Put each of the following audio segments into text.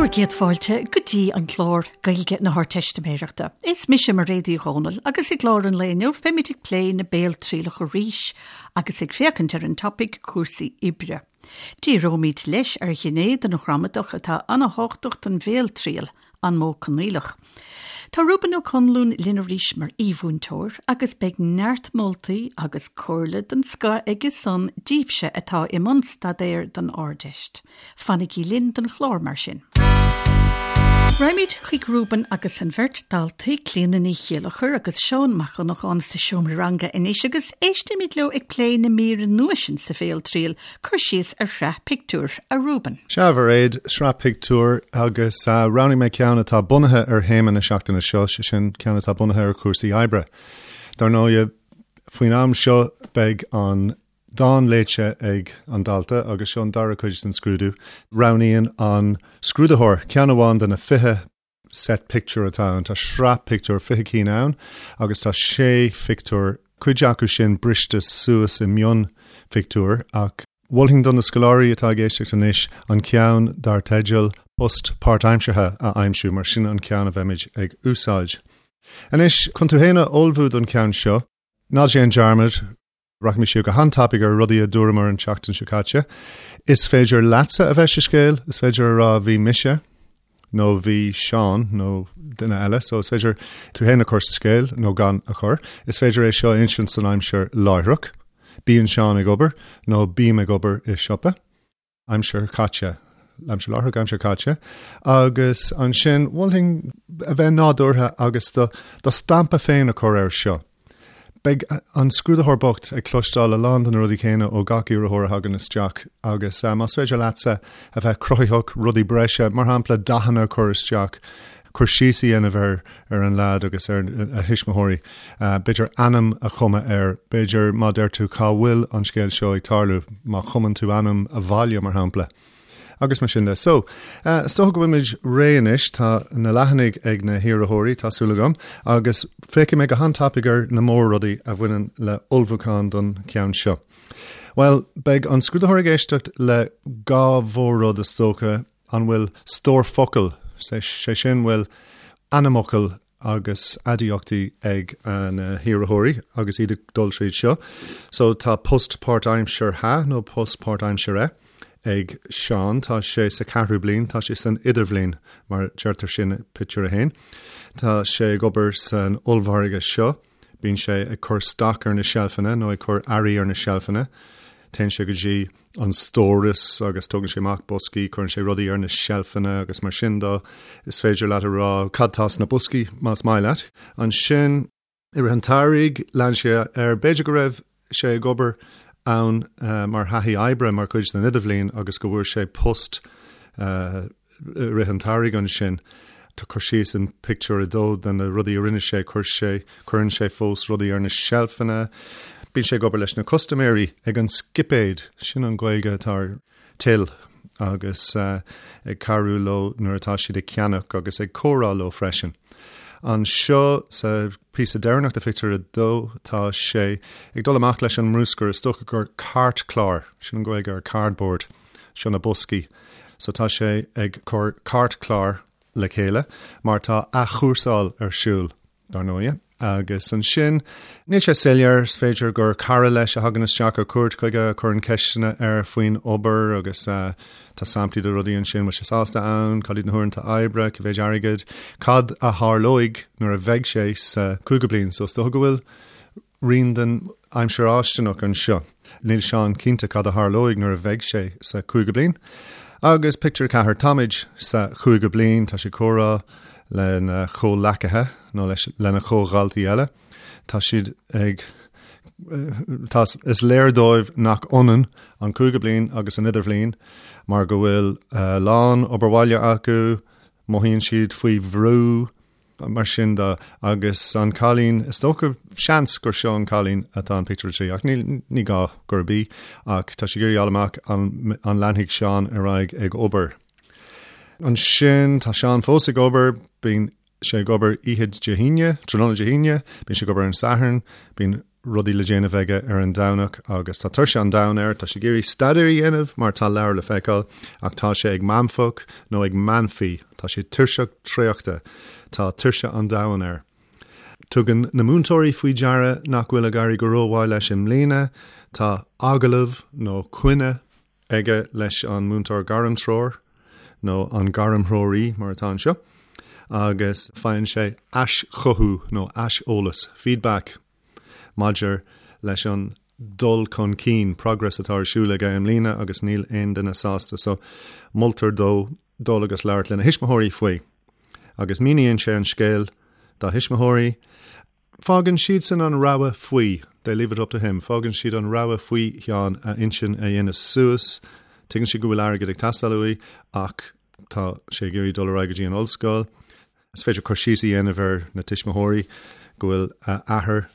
Bhur gcéad fáilte go dtí an clár Gaeilge na hArdteistiméireachta. Is mise Mairéad Uí Dhomhnaill agus i gclár an lae inniu beimid ag plé na béaltrialach arís agus ag féachaint ar an topaic cúrsaí oibre. Díreoimid leis ar ghné den ghramadach atá an-thábhachtach don bhéaltriail, an modh coinníollach. Tá Reuben Ó Conluain linn arís mar aoi-mhúinteoir agus beidh neart moltaí agus comhairle den scoth aige san díbhse atá i mbun staidéir don Ardeist. Fanaigí linn don chlár mar sin. Raghaimid chuig Reuben agus an bheirt daltaí, Clíona Ní Chéilleachair agus Seán Mac Dhonnacháin sa seomra ranga anois agus éistimid leo ag plé na míre nua sin sa bhéaltriail, cur síos ar shraith pictiúr, a Reuben. Sea, a Mhairéad, sraith pictiúr agus roghnaigh mé ceann atá bunaithe ar théama na seachtaine seo, sé sin ceann atá bunaithe ar chúrsaí oibre. Dar ndóigh, faoin am seo beidh an dán léite ag an dalta agus seo an dara cuid den scrúdú. Roghnaíonn an scrúdaitheoir ceann amháin de na 20 set pictiúr atá ann. Tá sraith pictiúr, 20 cinn ann agus tá sé phictiúr, cuid acu sin briste suas i mionphictiúir ach mholfainn do na scoláirí atá ag éisteacht anois an ceann dar teideal Post Páirtaimseartha a aimsiú mar sin an ceann a bheimid ag úsáid. Anois, chun tú féin a ullmhú don cheann seo, ná déan dearmad, Rachaimid siar go han-tapaidh ar rudaí a dúramar an tseachtain seo caite. Is féidir leatsa a bheith sa scéal, is féidir a rá bhí mise nó bhí Seán nó duine eile, so is féidir tú féin a chur sa scéal nó gan a chur. Is féidir é seo a insint san aimsir láithreach, bíonn Seán ag obair nó bím ag obair i siopa. aimsir chaite, aimsir láithreach, aimsir chaite, agus ansin mholfainn a bheith nádúrtha agus do do stampa féin a chur air seo. Beidh an scrúdaitheoir bocht ag cloisteáil a lán de na rudaí céanna ó gach iarrthóir a thagann isteach agus más féidir leatsa a bheith cruthaitheach, rudaí breise, mar shampla dathanna a chur isteach, cur síos a dhéanamh ar ar an leaid agus ar a thuismitheoirí, b'fhéidir ainm a chumadh air, b'fhéidir má deir tú cá bhfuil an scéal seo ag tarlú, má chumann tú ainm a bhaile, mar shampla. Agus mar sin de. So, is dócha go bhfuilimid réidh anois, tá na leathanaigh ag na hiarrthóirí, tá súil agam, agus féachfaidh mé go han-tapaidh ar na mór-rudaí a bhaineann le ullmhúchán don cheann seo. Bhuel, beidh an scrúdaitheoir ag éisteacht le dhá mhór-rud is dócha, An bhfuil stór focal, sé sin, bhfuil ainmfhocail agus aidiachtaí ag na hiarrthóirí agus iad ag dul tríd seo. So tá post páirtaimseartha nó post páirtaimsire ag Seán, tá sé sa cheathrú bliain, tá sé san idirbhliain mar deirtear sin i pictiúr a haon. Tá sé ag obair san ollmhargadh seo. Bíonn sé ag cur stoc ar na seilfeanna nó ag cur earraí ar na seilfeanna. Téann sé go dtí an stóras agus tógann sé amach boscaí, cuireann sé rudaí ar na seilfeanna agus mar sin de. Is féidir leat a rá cad tá sna boscaí más maith leat. Ansin, i rith an tsamhraidh, lean sé air, b'fhéidir go raibh sé ag obair ann mar thaithí oibre mar chuid den idirbhliain agus go bhfuair sé post i rith an tsamhraidh ansin. Tá cur síos in pictiúr a dó de na rudaí a rinne sé, chuir sé, cuireann sé fós rudaí ar na seilfeanna, bíonn sé ag obair leis na custaiméirí ag an scipéad, sin an Ghaeilge atá ar till, agus ag cabhrú leo nuair atá siad ag ceannach agus ag comhrá leo freisin. Anseo sa phíosa deireanach de phictiúr a dó tá sé ag dul amach leis an mbruscar, is dócha gur cairtchlár, sin an Ghaeilge ar cardboard. Seo na boscaí. So tá sé ag cur cairtchlár le chéile mar tá athchúrsáil ar siúl, dar ndóighe. Agus ansin, níl sé soiléir, is féidir gur cara leis a thagann isteach ar cuairt chuige, a chuireann ceisteanna air faoin obair agus tá samplaí de rudaí ansin, bhfuil sé sásta ann, cad iad na huaireanta oibre, cé mhéid airgid, cad a tharlóidh nuair a bheidh sé sa chúigiú bliain. So is dócha go bhfuil rian den aimsir fháistineach anseo. Níl Seán cinnte cad a tharlóidh nuair a bheidh sé sa chúigiú bliain. Agus pictiúr 4, táimid sa chúigiú bliain, tá sé ag comhrá lena chomhleacaithe nó leis lena chomhdhaltaí eile. Tá siad ag tá is léir dóibh nach ionann an cúigiú bliain agus an idirbhliain mar go bhfuil a lán obair bhaile acu, mothaíonn siad faoi bhrú, Mar sin de, agus an cailín, is dócha, seans gur seo an cailín atá in pictiúr a 3, ach ní, ní gá gurb í, ach tá sí ag iarraidh a fháil amach an, an leanfaidh Seán ar aghaidh ag obair. Ansin, tá Seán fós ag obair, bíonn sé ag obair oíche Dé hAoine, tráthnóna Dé hAoine, bíonn sé ag obair ar an Satharn, bíonn. rudaí le déanamh aige ar an Domhnach agus tá tuirse an domhain air, tá sé ag iarraidh staidéar a dhéanamh mar tá leabhar le feiceáil ach tá sé ag meanfach nó ag meanfaí, tá sé tuirseach traochta, tá tuirse an domhain air. Tugann na múinteoirí faoi deara nach bhfuil ag éirí go rómhaith leis i mbliana, tá agallamh nó coinne aige leis an múinteoir gairmtreoir nó an gairmthreoraí mar atá anseo agus faigheann sé aischothú nó aiseolas, feedback, maidir leis an dul chun cinn, progress, atá ar siúl aige i mbliana agus níl aon duine sásta so moltar dó dul agus labhairt lena thuismitheoirí faoi. Agus míníonn sé an scéal dá thuismitheoirí. Fágann siadsan an rogha faoi, they leave it up to him, fágann siad an rogha faoi Sheán a intinn a dhéanamh suas. Tuigeann siad go bhfuil airgead ag teastáil uaidh ach tá sé ag iarraidh dul ar aghaidh go dtí an ollscoil. Is féidir cur síos a dhéanamh ar na tuismitheoirí go bhfuil a athair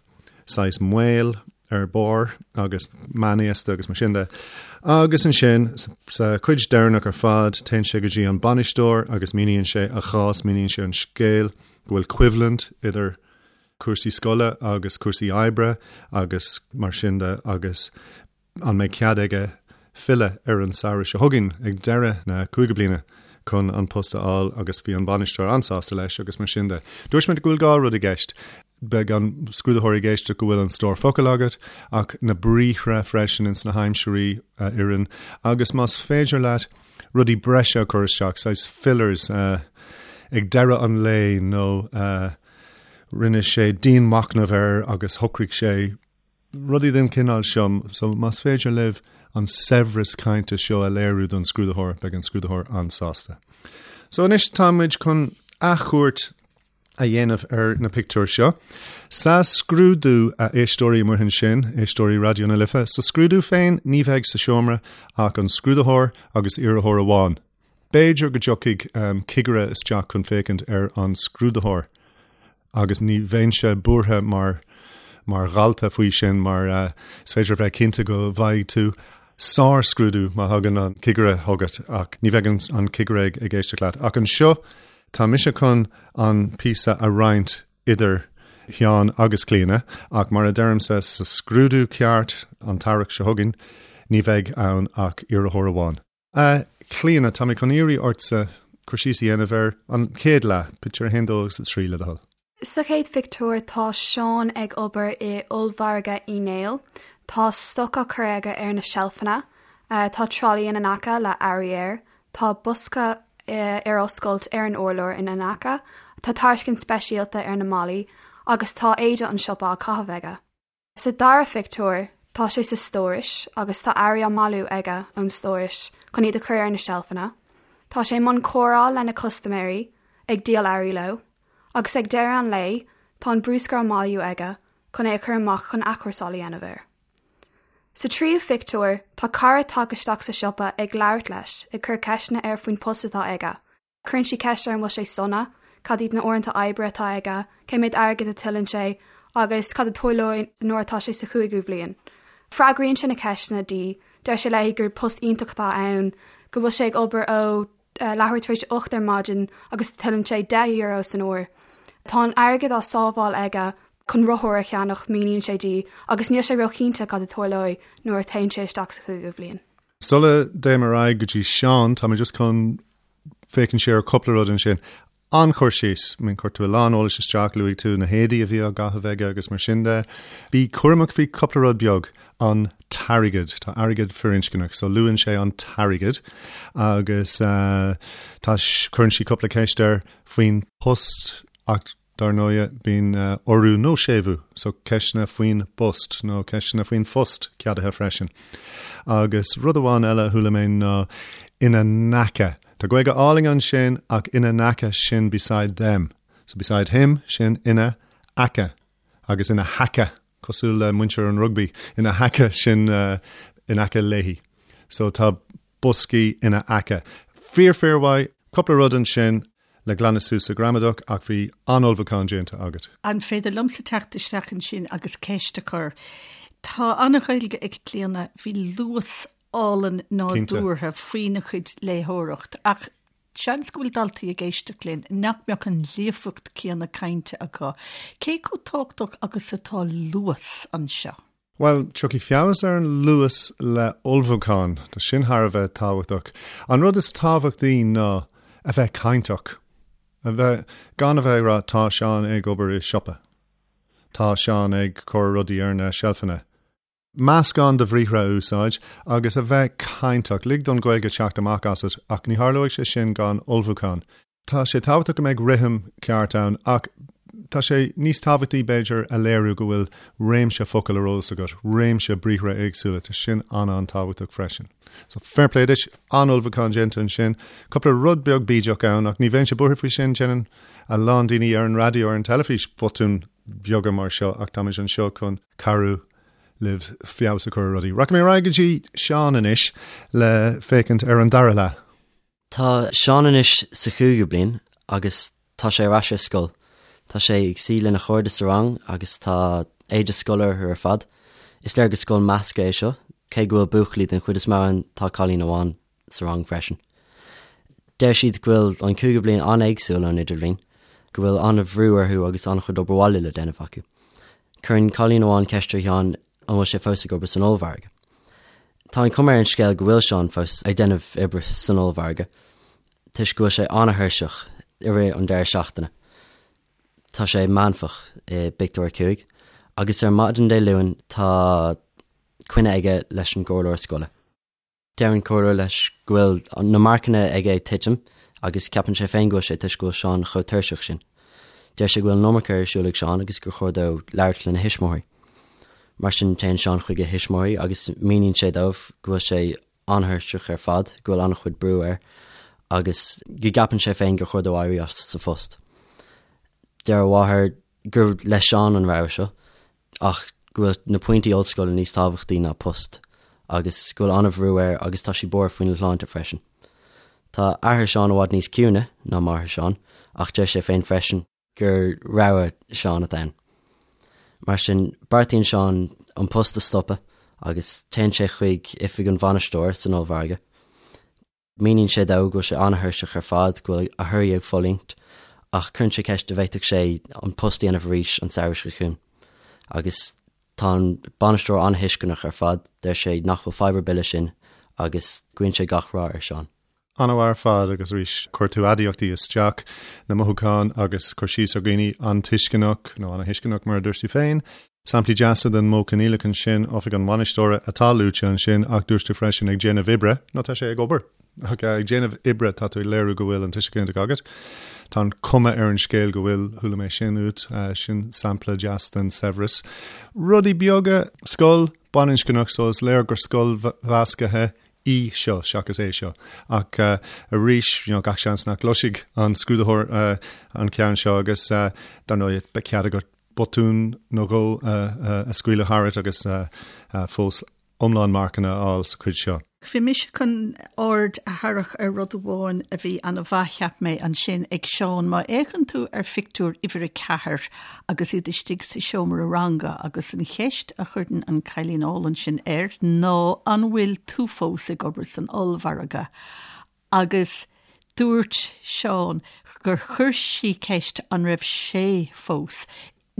saghas maol ar barr agus meánaosta agus mar sin de. Agus ansin, sa chuid deireanach ar fad, téann sé go dtí an bainisteoir agus míníonn sé a chás, míníonn sé an scéal. go bhfuil coimhlint idir cúrsaí scoile agus cúrsaí oibre agus mar sin de agus an mbeidh cead aige filleadh ar an samhradh seo chugainn ag deireadh na cúigiú bliana chun an post a fháil agus bhí an bainisteoir an-sásta leis agus mar sin de. Dúirt mé go bhfuil dhá rud i gceist. Beidh an scrúdaitheoir ag éisteacht go bhfuil an stór focal agat ach na briathra freisin ins na haimsirí a oireann agus más féidir leat rudaí breise a chur isteach, saghas fillers, ag deireadh an lae nó rinne sé dianmhachnamh air agus shocraigh sé rudaí den chineál seo. So más féidir libh an saibhreas cainte seo a léiriú don scrúdaitheoir, beidh an scrúdaitheoir an-sásta. So anois tá muid chun athchuairt a dhéanamh ar na pictiúir seo. Sa scrúdú, a éisteoirí amuigh ansin, éisteoirí Raidió na Life, sa scrúdú féin ní bheidh sa seomra ach an scrúdaitheoir agus iarrthóir amháin. B'fhéidir go dtiocfaidh cigire isteach chun féachaint ar an scrúdaitheoir agus ní bheinnse buartha mar mar dhalta faoi sin mar is féidir a bheith cinnte go bhfaighidh tú sár-scrúdú má thagann an cigire chugat ach ní bheidh an cigire ag éisteacht leat. Ach anseo Tá mise chun an píosa a roinnt idir Sheán agus Clíona, ach mar a deirimse, sa scrúdú ceart an t-earrach seo chugainn, ní bheidh ann ach iarrthóir amháin. A Chlíona, tá mé chun iarraidh ortsa cur síos a dhéanamh ar an chéad leath, pictiúr 1, 2 agus 3, le do thoil. Sa chéad phictiúr tá Seán ag obair i ollmhargadh Uí Néill. Tá stoc á cur aige ar na seilfeanna. Tá tralaí ina n-aice le earraí air. Tá bosca ar oscailt ar an urlár ina n-aice. Tá tairiscint speisialta ar na malaí agus tá éide an siopa á caitheamh aige. Sa dara phictiúr, tá sé sa stóras agus tá earraí á mbailiú aige ón stóras chun iad a chur ar na seilfeanna. Tá sé i mbun comhrá lena chustaiméirí, ag díol earraí leo, agus ag deireadh an lae, tá an bruscar á mbailiú aige chun é a chur amach chun athchúrsáil a dhéanamh air. Sa tríú phictiúr, tá cara tagtha isteach sa siopa ag labhairt leis, ag cur ceisteanna air faoin post atá aige. Cuireann sí ceist air an bhfuil sé sona, cad iad na uaireanta oibre atá aige, cé méad airgid a tuilleann sé agus cad a tarlóidh nuair atá sé sa chúigiú bhliain. Freagraíonn sé na ceisteanna di, deir sé léi gur post iontach atá ann, go bhfuil sé ag obair ó leathuair tar éis a 8 ar maidin agus tuilleann sé €10 san uair. Tá an airgead á sábháil aige chun rothar a cheannach, míníonn sé di, agus níl sé róchinnte cad a tarlóidh nuair a théann sé isteach sa chúigiú bhliain. Sula dtéim ar aghaidh go dtí Seán, tá mé just chun féachaint siar ar cúpla rud ansin. An-chur síos, I mean, chuir tú a lán eolais isteach, luaigh tú na héadaí a bhí á gcaitheamh aige agus mar sin de. Bí cúramach faoi cúpla rud beag, an t-airgead, tá airgead firinscneach, so luann sé an t-airgead agus tá, cuireann sí cúpla ceist air faoin post ach Dar ndóighe, bíonn urú nó séimhiú, so ceisteanna faoin bpost nó ceisteanna faoin phost ceadaithe freisin. Agus rud amháin eile a chuala mé ná ina n-aice. Tá Gaeilge álainn ansin ach ina n-aice sin beside them. So beside him sin ina aice agus ina haice cosúil le muintir an rugbaí ina haice sin in aice léi. So tá boscaí ina aice. Fíor fíor mhaith. Cúpla rud ansin le glanadh suas sa ghramadach ach bhí an-ullmhúchán déanta agat. An féidir liomsa teacht isteach ansin agus ceist a chur? Tá an-Ghaeilge ag Clíona, bhí luas álainn nádúrtha faoina cuid léitheoireacht ach. Seans go bhfuil daltaí ag éisteacht linn nach mbeadh an líofacht céanna cainte acu. Cé chomh tábhachtach agus atá luas anseo? Bhuel, tiocfaidh feabhas ar an luas le ullmhúchán. Tá sin thar a bheith tábhachtach. An rud is tábhachtaí ná a bheith cainteach. A bheith, gan a bheith ag rá 'tá Seán ag obair i siopa'. 'Tá Seán ag cur rudaí ar na seilfeanna. Meascán de bhriathra a úsáid agus a bheith cainteach. Lig don Ghaeilge teacht amach asat ach ní tharlóidh sé sin gan ullmhúchán. Tá sé tábhachtach go mbeidh rithim ceart ann ach tá sé níos tábhachtaí, b'fhéidir, a léiriú go bhfuil réimse focal ar eolas agat, réimse briathra éagsúla. Tá sin an-an-tábhachtach freisin. So, fair play duit, an-ullmhúchán déanta ansin. Cúpla rud beag bídeach ann ach ní bheinnse buartha faoi sin, déanann a lán daoine ar an raidió, ar an teilifís botúin bheaga mar seo ach táimid anseo chun cabhrú libh feabhas a chur ar rudaí. Rachaidh mé ar aghaidh go dtí Seán anois le féachaint ar an dara leath. Tá Seán anois sa chúigiú bliain agus tá sé ar ais ar scoil. Tá sé ag suí lena chairde sa rang agus tá éide scoile orthu ar fad. Is léir gur scoil measctha é seo, cé go bhfuil buachaillí den chuid is mó ann tá cailín amháin sa rang freisin. Deir siad go bhfuil an cúigiú bliain an-éagsúil ón idirbhliain, go bhfuil an-bhrú orthu agus an-chuid obair bhaile le déanamh acu. Cuireann cailín amháin ceist ar Sheán an bhfuil sé fós ag obair san ollmhargadh. Tá an chuma ar an scéal go bhfuil Seán fós ag déanamh oibre san ollmhargadh, toisc go bhfuil sé an-thuirseach i rith an deireadh seachtaine. Tá sé meánfach i bpictiúr 5, agus ar maidin Dé Luain tá coinne aige leis an gcomhairleoir scoile. Deir an comhairleoir leis go bhfuil na marcanna aige ag titim agus ceapann sé féin go bhfuil sé toisc go bhfuil Seán chomh tuirseach sin. Deir sé go bhfuil an iomarca ar siúl ag Seán agus gur chóir dó labhairt lena thuismitheoirí. Mar sin téann Seán chuig a thuismitheoirí agus míníonn sé dóibh go bhfuil sé an-thuirseach ar fad, go bhfuil an-chuid brú air agus go gceapann sé féin gur chóir dó éirí as sa phost. Deir a mháthair gur le Seán an rogha seo. ach go bhfuil na pointí ollscoile níos tábhachtaí ná post agus go bhfuil an-bhrú air agus tá sí buartha faoina shláinte freisin. Tá athair Seán i bhfad níos ciúine ná máthair Seán ach deir sé féin freisin gur rogha Seán atá ann. Mar sin, beartaíonn Seán an post a stopadh agus téann sé chuig oifig an bhainisteora san ollmhargadh. Míníonn sé dó go bhfuil sé an-thuirseach ar fad, go bhfuil a thorthaí ag fulaingt, ach cuireann sé ceist an bhféadfadh sé an post a dhéanamh arís an samhradh seo chugainn. Agus tá an bainisteoir an-thuisceanach ar fad, deir sé nach bhfuil fadhb ar bith leis sin agus guíonn sé gach rath ar Seán. An-mhaith ar fad agus arís chuir tú aidiachtaí isteach, na mothúcháin agus cur síos ar dhaoine an-tuisceanach, nó ana-thuisceanach mar a dúirt tú féin. Samplaí deasa den modh coinníollach ansin, oifig an bhainisteora atá luaite ansin ach dúirt tú freisin ag déanamh oibre, nó tá sé ag obair, ach ag déanamh oibre tá tú ag léiriú go bhfuil an tuiseal ginideach agat. Tá an chuma ar an scéal go bhfuil, chuala mé sin uait, sin sampla deas den saibhreas. Rudaí beaga, scoil baininscneach so is léir gur scoil mheasctha í seo seachas é seo. Ach arís, you know, gach seans nach gcloisfidh an scrúdaitheoir an ceann seo agus dar ndóigh beidh cead agat botún nó dhó a scaoileadh tharat agus fós iomlán marcanna a fháil sa chuid seo. Bhí mise chun aird a tharrac ar rud amháin a bhí an-mhaith, cheap mé, ansin ag Seán. Má fhéachann tú ar phictiúr uimhir 4 agus iad istigh sa seomra ranga agus an cheist a chuireann an cailín álainn sin air ná 'An bhfuil tú fós ag obair san ollmhargadh? Agus dúirt Seán gur chuir sí ceist an raibh sé fós.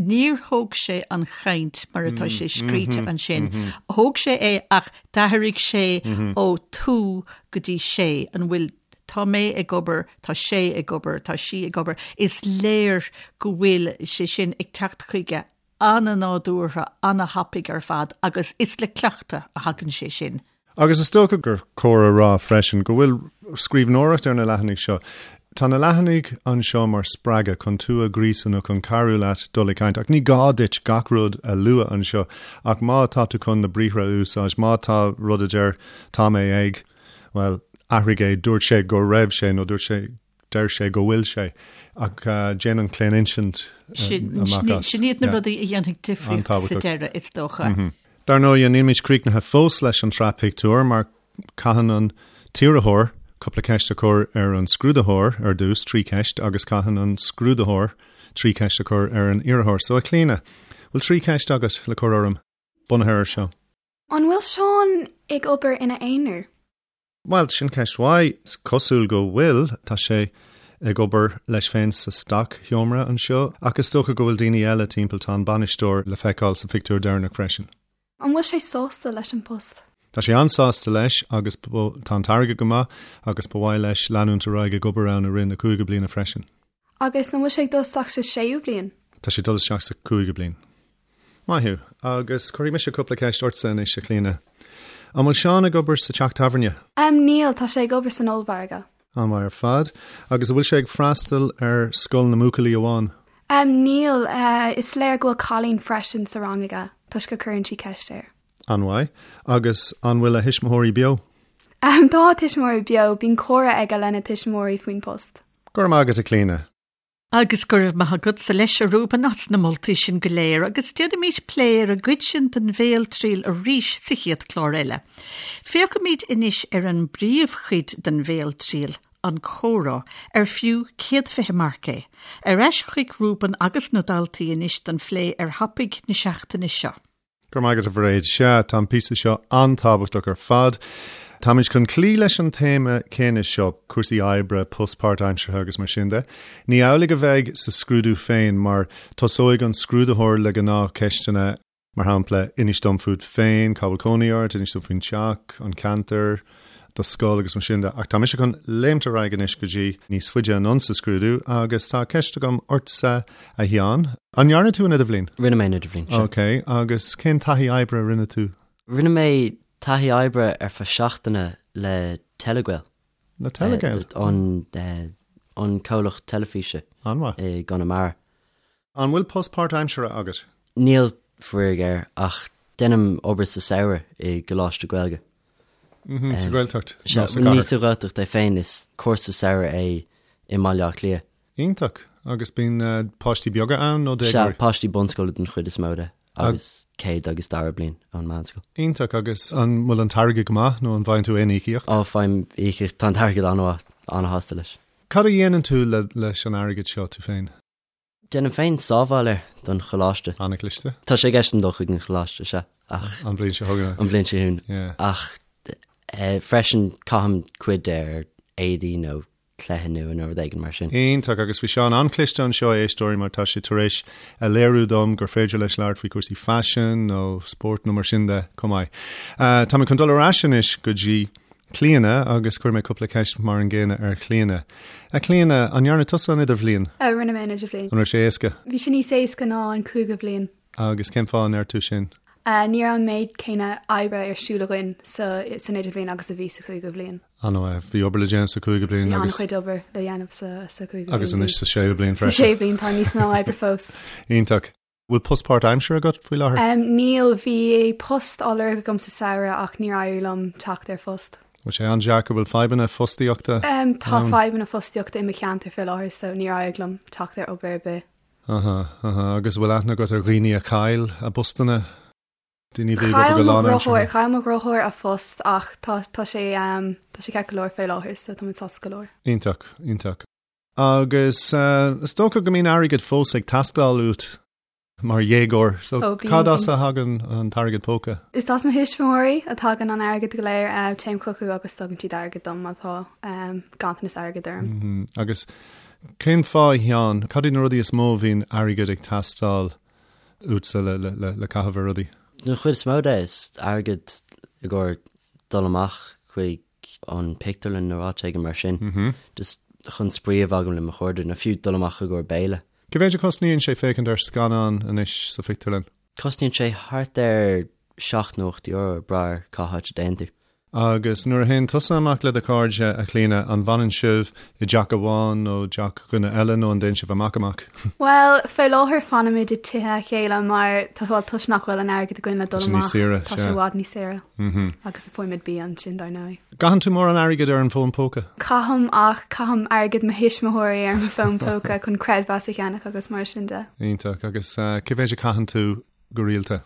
Níor thóg sé an chaint mar atá sé scríte ansin. Thóg sé é ach d'athraigh sé ó tú go dtí sé. An bhfuil tá mé ag obair, tá sé ag obair, tá sí ag obair. Is léir go bhfuil sé sin ag teacht chuige an-nádúrtha, an-thapaidh ar fad agus is le cleachtadh a thagann sé sin. Agus is dócha gur cóir a rá freisin go bhfuil scríbhneoireacht ar na leathanaigh seo. Tá na leathanaigh anseo mar spreagadh chun tú a ghríosadh nó chun cabhrú leat dul ag caint, ach ní gá duit gach rud a lua anseo ach má tá tú chun na briathra a úsáid, má tá rud a deir tá mé ag, bhuel, athraigh é, dúirt sé go raibh sé nó dúirt sé Deir sé go bhfuil sé, ach déan an claoninsint amach as. Sin iad na rudaí a dhéanfaidh difríocht sa deireadh, is dócha. Dar ndóigh, nílimid críochnaithe fós leis an tsraith pictiúr, mar caitheann an t-iarrthóir cúpla ceist a chur ar an scrúdaitheoir ar dtús, 3 cheist, agus caitheann an scrúdaitheoir 3 cheist a chur ar an iarrthóir. So, a Chlíona, bhfuil 3 cheist agat le cur orm, bunaithe ar seo? An bhfuil Seán ag obair ina aonar? Bhuel, sin ceist mhaith. Is cosúil go bhfuil. Tá sé ag obair leis féin sa stoc-sheomra anseo, ach is dócha go bhfuil daoine eile timpeall. Tá an bainisteoir le feiceáil sa phictiúr deireanach freisin. An bhfuil sé sásta leis an bpost? Tá sé an-sásta leis agus tá an t-airgead go maith agus ba mhaith leis leanúint ar aghaidh ag obair ann i rith na cúigiú bliana freisin. Agus an bhfuil sé ag dul isteach sa séú bliain? Tá sé ag dul isteach sa cúigiú bliain. Maith thú. Agus cuirfidh mise cúpla ceist ortsa anois, a Chlíona. An bhfuil Seán ag obair sa teach tábhairne? Em, níl, tá sé ag obair san ollmhargadh. An-mhaith ar fad. Agus an bhfuil sé ag freastal ar scoil na mbuachaillí amháin? Em, níl, eh, is léir go bhfuil cailín freisin sa rang aige, toisc go cuireann sí ceist air. An-mhaith. Agus an bhfuil a thuismitheoirí beo? Em, tá a tuismitheoirí beo, bíonn comhrá aige lena tuismitheoirí faoin post. Go raibh maith agat, a Chlíona. Agus go raibh maith agatsa leis, a Reuben, as na moltaí sin go léir, agus déanfaimid plé ar an gcuid sin den bhéaltriail arís sa chéad chlár eile. Féachfaimid anois ar an bpríomhchuid den bhéaltriail, an comhrá, ar fiú 120 marc é. Ar ais chuig Reuben agus na daltaí anois don phlé ar thopaic na seachtaine seo. Go raibh maith agat, a Mhairéad. Sea, tá an píosa seo an-tábhachtach ar fad. Táimid chun cloí leis an téama céanna seo, cúrsaí oibre, post páirtaimseartha agus mar sin de. Ní amhlaidh a bheidh sa scrúdú féin mar tosóidh an scrúdaitheoir le gnáthcheisteanna, mar shampla, inis dom fút féin, cá bhfuil cónaí ort, inis dom faoin teach, an ceantar, do scoil agus mar sin de. Ach tá mise chun léimt ar aghaidh anois go dtí níos faide anonn sa scrúdú agus tá ceist agam ortsa, a Sheáin. An ndearna tú an idirbhliain? Rinne mé an idirbhliain, sea. Ok, agus cén taithí oibre a rinne tú? Rinne mé taithí oibre ar feadh seachtaine le Telegael. Le Telegael? An, an comhlacht teilifíse. An-mhaith. I gConamara. An bhfuil post páirtaimseartha agat? Níl, faraor géar, ach déanaim obair sa samhradh i gcoláiste Gaeilge. Sa Ghaeltacht nó sa chathair? Ní sa Ghaeltacht é féin, is cúrsa samhraidh é i mBaile Átha Cliath. Iontach! Agus bíonn páistí beaga ann nó déagóirí? Sea, páistí bunscoile den chuid is mó de, agus céad agus dara bliain ón meánscoil. Iontach! Agus an bhfuil an t-airgead go maith nó an bhfaigheann tú aon íocaíocht? Ó, faighim íocaíocht, tá an t-airgead an-mhaith, an-shásta leis. Cad a dhéanann tú leis an airgead seo, tú féin? Déanaim féin sábháil air don choláiste. An-chliste. Tá sé i gceist agam dul chuig an choláiste, sea, ach. An bhliain seo chugainn. An bhliain seo chugainn. Yeah. Ach freisin caithim cuid de ar éadaí nó cluiche nua nó rud éigin mar sin. Iontach, agus bhí Seán an-chliste anseo, a éisteoirí, mar tá sé tar éis a léiriú dom gur féidir leis labhairt faoi chúrsaí faisin nó spóirt nó mar sin de chomh maith. Tá mé chun dul ar ais anois go dtí Clíona agus cuirfidh mé cúpla ceist mar an gcéanna ar Chlíona. A Chlíona, an ndearna tusa an idirbhliain? Rinne mé an idirbhliain. An raibh sé éasca? Bhí sé níos éasca ná an cúigiú bliain. Agus cén fáth a ndeir tú sin? Ní raibh an méid céanna oibre ar siúl againn sa san idirbhliain agus a bhí sa chúigiú bliain. An-mhaith. Bhí obair le déanamh sa chúigiú bliain Bhí agus. an-chuid obair le dhéanamh sa sa chúigiú bliain. Agus anois sa séú bliain freisin. Sa séú bliain tá níos mó oibre fós. Iontach. Bhfuil post páirtaimseartha agat faoi láthair? Níl, bhí post á lorg agam sa samhradh ach níor éirigh liom teacht ar phost. Bhfuil sé an-deacair? Bhfuil fadhbanna fostaíochta ann? Tá fadhbanna fostaíochta i mo cheantar faoi láthair so níor éirigh liom teacht ar obair ar bith. Aha, aha. Agus bhfuil aithne agat ar dhaoine a chaill a bpostanna? Daoine a bhí ag obair go lánaimseartha? Chaill mo dheartháir a phost ach tá tá sé tá sé ceart go leor faoi láthair so tá muid sásta go leor. Iontach, iontach. Agus is dócha go mbíonn airgead fós ag teastáil uait mar dhéagóir, so Ó, bíonn, cad as bíonn. a thagann an t-airgead póca? Is as mo thuismitheoirí a thagann an airgead go léir. Téim chucu agus tugann siad airgead dom má tá ganntanas airgid orm. Agus cén fáth, a Sheáin, cad iad na rudaí is mó a bhíonn airgead ag teastáil uatsa le caitheamh ar rudaí? Den chuid is mó de, is airgead i gcomhair dul amach chuig an pictiúrlann nó áit éigin mar sin. Just chun spraoi a bheith agam le mo chairde, nó fiú dul amach i gcomhair béile. Cé mhéid a chosnaíonn sé féachaint ar scannán anois sa phictiúrlann? Cosnaíonn sé thart ar 7 nó 8 euro, ag brath ar cá háit a dtéann tú. Agus nuair a théann tusa amach le do chairde, a Chlíona, an bhfanann sibh i dteach amháin nó teach dhuine eile nó an dtéann sibh amach amach? Bhuel, fé láthair fanaimid i dtithe a chéile mar tá bhuel toisc nach bhfuil an airgead againn le dul Tá sé níos amach. saoire, Tá sé sea. i bhfad níos saoire. Agus faighimid bia ansin, dar ndóigh. Gcaitheann tú mórán airgid ar an bhfón póca? Caithim ach caithim airgead mo thuismitheoirí ar mo fón póca chun creidmheas a cheannach agus mar sin de. Iontach. Agus cé mhéid a chaitheann tú go rialta?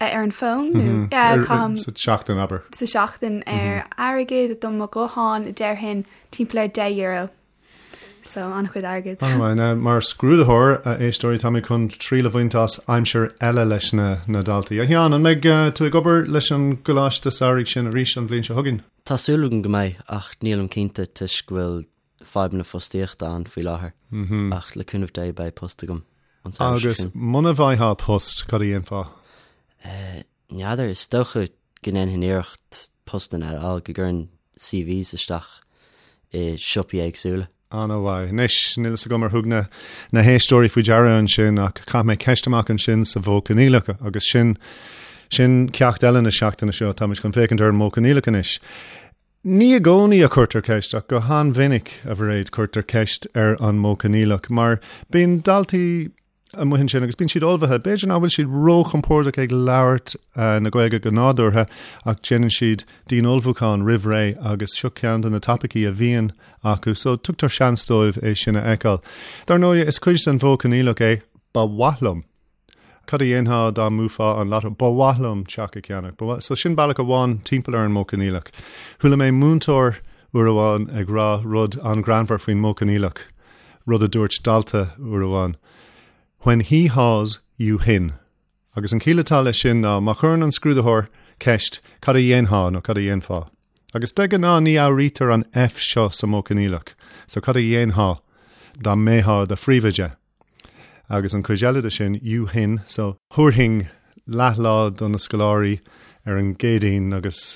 Ar an bhfón nó? Caithim. Sa tseachtain, abair. Sa tseachtain ar airgead do mo ghuthán déarfainn timpeall ar €10. So an-chuid airgid. An-mhaith. Now, mar scrúdaitheoir, a éisteoirí, tá mé chun triail a bhaint as aimsir eile leis na na daltaí. A Sheáin, an mbeidh tú ag obair leis an gcoláiste samhraidh sin arís an bhliain seo chugainn? Tá súil agam go mbeidh, ach nílim cinnte toisc go bhfuil fadhbanna fostaíochta ann faoi láthair. Ach le cúnamh Dé beidh post agam an samhradh seo Agus chugainn. muna bhfaightheá post, cad a dhéanfá? N'fheadar, is dócha go ndéanfainn iarracht postanna a fháil, go gcuirfinn CVs isteach i siopaí éagsúla. An-mhaith. Anois, níl fhios agam ar thug na na héisteoirí faoi deara ansin ach chaith mé ceist amach ansin sa mhodh coinníollach agus sin sin ceacht eile na seachtaine seo. Táimid chun féachaint ar an modh coinníollach anois. Ní i gcónaí a chuirtear ceist ach go han-mhinic, a Mhairéad, cuirtear ceist ar an modh coinníollach mar bíonn daltaí amuigh ansin agus bíonn siad ullmhaithe. B'fhéidir nach bhfuil siad róchompordach ag labhairt na Gaeilge go nádúrtha ach déanann siad dian-ullmhúchán roimh ré agus seo ceann de na topaicí a bhíonn acu so tugtar seans dóibh é sin a fheiceáil. Dar ndóigh, is cuid den mhodh coinníollach é 'ba mhaith liom'. Cad a dhéanfá dá mbuafá an lotto? Ba mhaith liom teach a cheannach. Ba mhaith. So sin bealach amháin timpeall ar an modh coinníollach. Chuala mé múinteoir uair amháin ag rá rud an-ghreannmhar faoin modh coinníollach. rud a dúirt dalta uair amháin, When he haws, you hin. Agus an chiall atá leis sin ná má chuireann an scrúdaitheoir ceist cad a dhéanfá nó cad a dhéanfá? Agus de ghnáth ní fhuaimnítear an F seo sa modh coinníollach, so cad a dhéanfá dá mbeifeá i do phríomhoide? Agus an chuid eile de sin, you hin, so thabharfainn leathlá do na scoláirí ar an gCéadaoin agus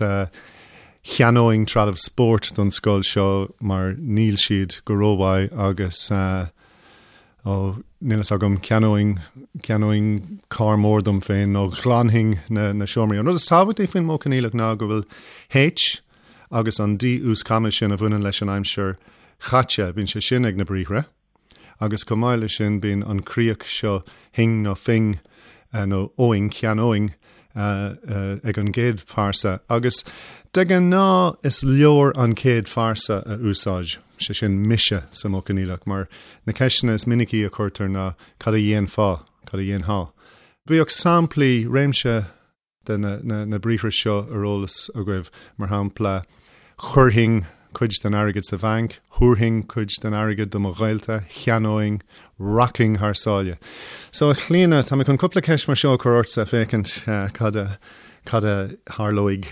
cheannóinn trealamh spóirt don scoil seo mar níl siad go rómhaith agus ó níl fhios agam ceannóinn ceannóinn carr mór dom féin nó ghlanfainn na na seomraí. An rud is tábhachtaí faoin modh coinníollach ná go bhfuil H agus an D uaschama sin a bhaineann leis an aimsir chaite, bíonn sé sin ag na briathra. Agus chomh maith leis sin bíonn an chríoch seo hing nó fing nó óing, cheannóinn ag an gcéad phearsa. Agus de ghnáth is leor an chéad phearsa a úsáid, sé sin mise sa modh coinníollach, mar na ceisteanna is minicí a chuirtear ná cad a dhéanfá, cad a dhéanfá. Bíodh samplaí, réimse de na briathra seo ar eolas agaibh, mar shampla, chuirfinn cuid den airgead sa bhanc, thabharfainn cuid den airgead do mo ghaolta, cheannóinn, rachainn thar sáile. So, a Chlíona, tá mé chun cúpla ceist mar seo a chur ortsa féachaint cad a cad a tharlóidh.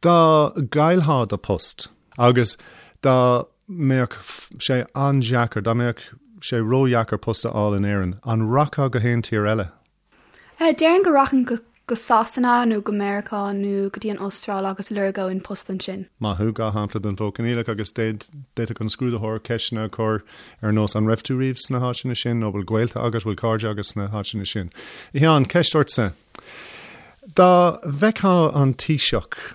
Dá gcaillfeá do post agus dá mbeadh sé an-deacair, dá mbeadh sé ródheacair post a fháil in Éirinn, an rachfá go haon tír eile? Déarfainn go rachainn go Sasana nó go Meiriceá nó go dtí an Astráil agus lorgóinn post ansin. Maith thú, 2 shampla den mhodh coinníollach agus d'fhéadfadh an scrúdaitheoir ceisteanna a chur ar nós an raibh tú riamh sna háiteanna sin nó bhfuil gaolta agat, bhfuil cairde agat sna háiteanna sin. A Sheáin, ceist ortsa. Dá bhfeicfeá an Taoiseach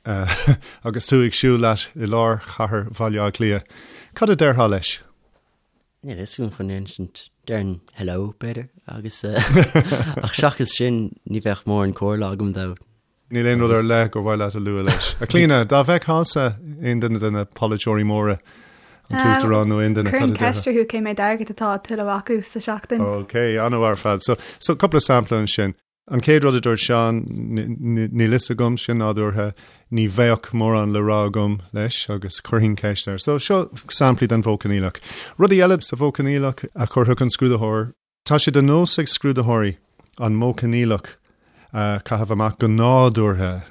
agus tú ag siúl leat i lár chathair Bhaile Átha Cliath, cad a déarfá leis? Níl a fhios agam chun insint. Déarfainn hello, b'fhéidir, agus ach seachas sin ní bheadh mórán comhairle agam dó. Níl aon rud ar leith gur mhaith leat a lua leis. A Chlíona, dá bhfeicfeása aon duine de na polaiteoirí móra, an tUachtarán nó aon duine, cad a déarfá? Chuirfinn ceist orthu cé méid airgid atá á thuilleamh acu sa seachtain. Ok, an-mhaith ar fad. So, so cúpla sampla ansin. An chéad rud a dúirt Seán, níl fhios agam, sin nádúrtha, ní bheadh mórán le rá agam leis agus chuirfinn ceist air. So seo samplaí den mhodh coinníollach. Rudaí eile sa mhodh coinníollach a chuirfeadh an scrúdaitheoir, tá sé de nós ag scrúdaitheoirí an modh coinníollach a chaitheamh amach go nádúrtha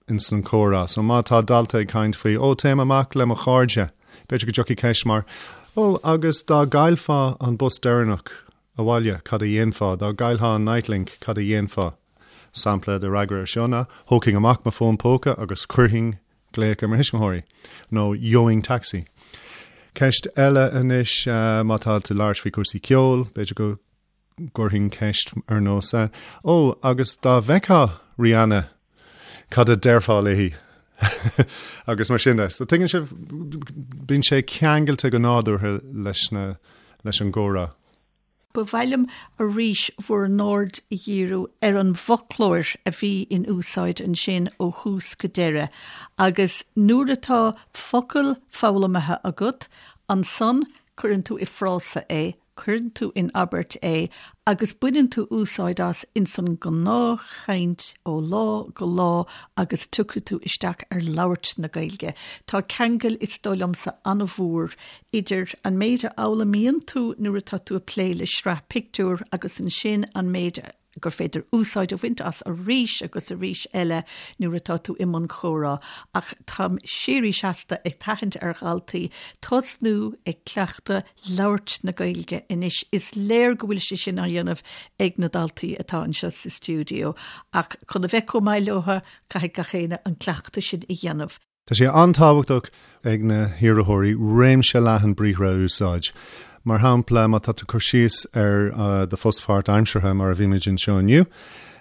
ins an chomhrá. So má tá dalta ag caint faoi, ó téim amach le mo chairde, b'fhéidir go dtiocfaidh ceist mar, ó agus dá gcaillfeá an bus deireanach abhaile, cad a dhéanfá? Dá gcaillfeá an Nitelink, cad a dhéanfá? Sampla de fhreagra ar seo ná, thógfainn amach mo fón póca agus chuirfinn glaoch ar mo thuismitheoirí, nó gheobhainn taxi. Ceist eile anois, má tá tú ag labhairt faoi chúrsaí ceoil, b'fhéidir go gcuirfinn ceist ar nós, Ó, agus dá bhfeicfeá Rihanna, cad a déarfá léi? Agus mar sin de. So tuigeann sibh, bíonn sé ceangailte go nádúrtha leis na, leis an gcomhrá. Ba mhaith liom arís bhur n-aird a dhíriú ar an bhfoclóir a bhí in úsáid ansin ó thús go deireadh agus nuair atá focal foghlamtha agat, ansan cuireann tú i frása é. Cuireann tú in abairt é agus baineann tú úsáid as ins an ngnáthchaint ó lá go lá agus tiocfaidh tú isteach ar labhairt na Gaeilge. Tá ceangal, is dóigh liomsa, an-mhór idir an méid a fhoghlaimíonn tú nuair atá tú ag plé le sraith pictiúr agus ansin an méid a gur féidir úsáid a bhaint as arís agus arís eile nuair atá tú i mbun comhrá, ach táim síoraí seasta ag tathant ar dhaltaí tosnú ag cleachtadh labhairt na Gaeilge anois. Is léir go bhfuil sé sin á dhéanamh ag na daltaí atá anseo sa stiúideo, ach chun a bheith chomh maith leo, caithfidh gach éinne an cleachtadh sin a dhéanamh. Tá sé an-tábhachtach ag na hiarrthóirí réimse leathan briathra a úsáid. Mar shampla, má tá tú ag cur síos ar do phost páirtaimseartha, mar a bhímid anseo inniu,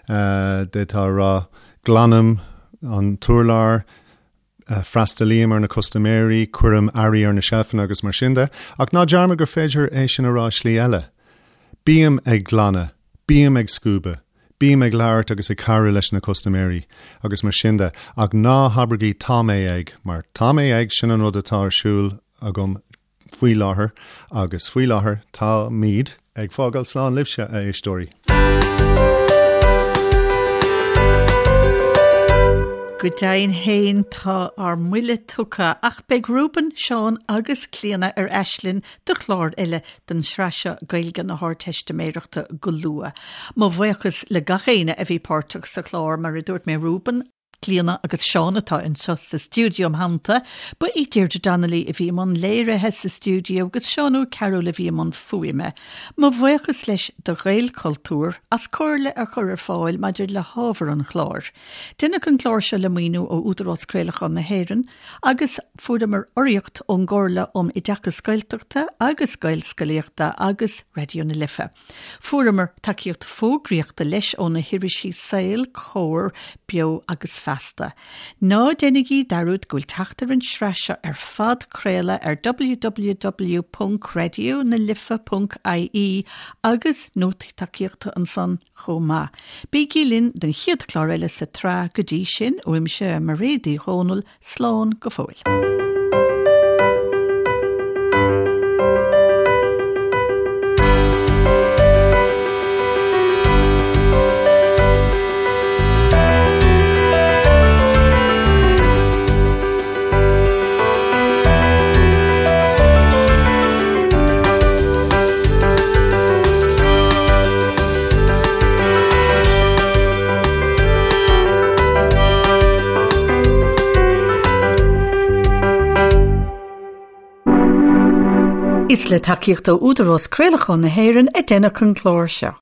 d'fhéadfá a rá, glanaim an t-urlár, freastalaím ar na custaiméirí, cuirim earraí ar na seilfeanna agus mar sin de. Ach ná dearmad gur féidir é sin a rá i slí eile. Bím ag glanadh, bím ag scuabadh. Bím ag labhairt agus ag cabhrú leis na custaiméirí agus mar sin de, ach ná habraigí tá mé ag, mar tá mé ag, sin an rud atá ar siúl agam faoi láthair agus faoi láthair táimid ag fágáil slán libhse, a éisteoirí. Go deimhin féin tá ár mbuille tugtha ach beidh Reuben, Seán agus Clíona ar ais linn do chlár eile den tsraith seo Gaeilge na hArdteistiméireachta go luath. Mo bhuíochas le gach éinne a bhí páirteach sa chlár, mar a dúirt mé Reuben, Clíona agus Seán atá anseo sa stiúideo im theannta. Ba í Deirdre Donnelly a bhí i mbun léirithe sa stiúideo agus Seán Ó Cearúil a bhí i mbun fuaime. Mo bhuíochas leis do Ghaelchultúr as comhairle a chur ar fáil maidir le hábhar an chláir. Deineadh an clár seo le maoiniú ó Údarás Craolacháin na hÉireann. Agus fuaireamar urraíocht ón gComhairle um Oideachas Gaeltachta agus Gaelscolaíochta agus Raidió na Life. Fuaireamar tacaíocht fógraíochta leis ó na hirisí Saol, Comhar, Beo agus Feasta. Ná déanaigí dearúd go bhfuil teacht ar an sraith seo ar phodchraoladh ar www.radionalife.ie agus nótaí tacaíochta ansan chomh maith. Bígí linn don chéad chlár eile sa tsraith, go dtí sin, uaimse, Mairéad Uí Dhomhnaill, slán go fóill. Is le tacaíocht ó Údarás Craolacháin na hÉireann a deineadh an clár seo.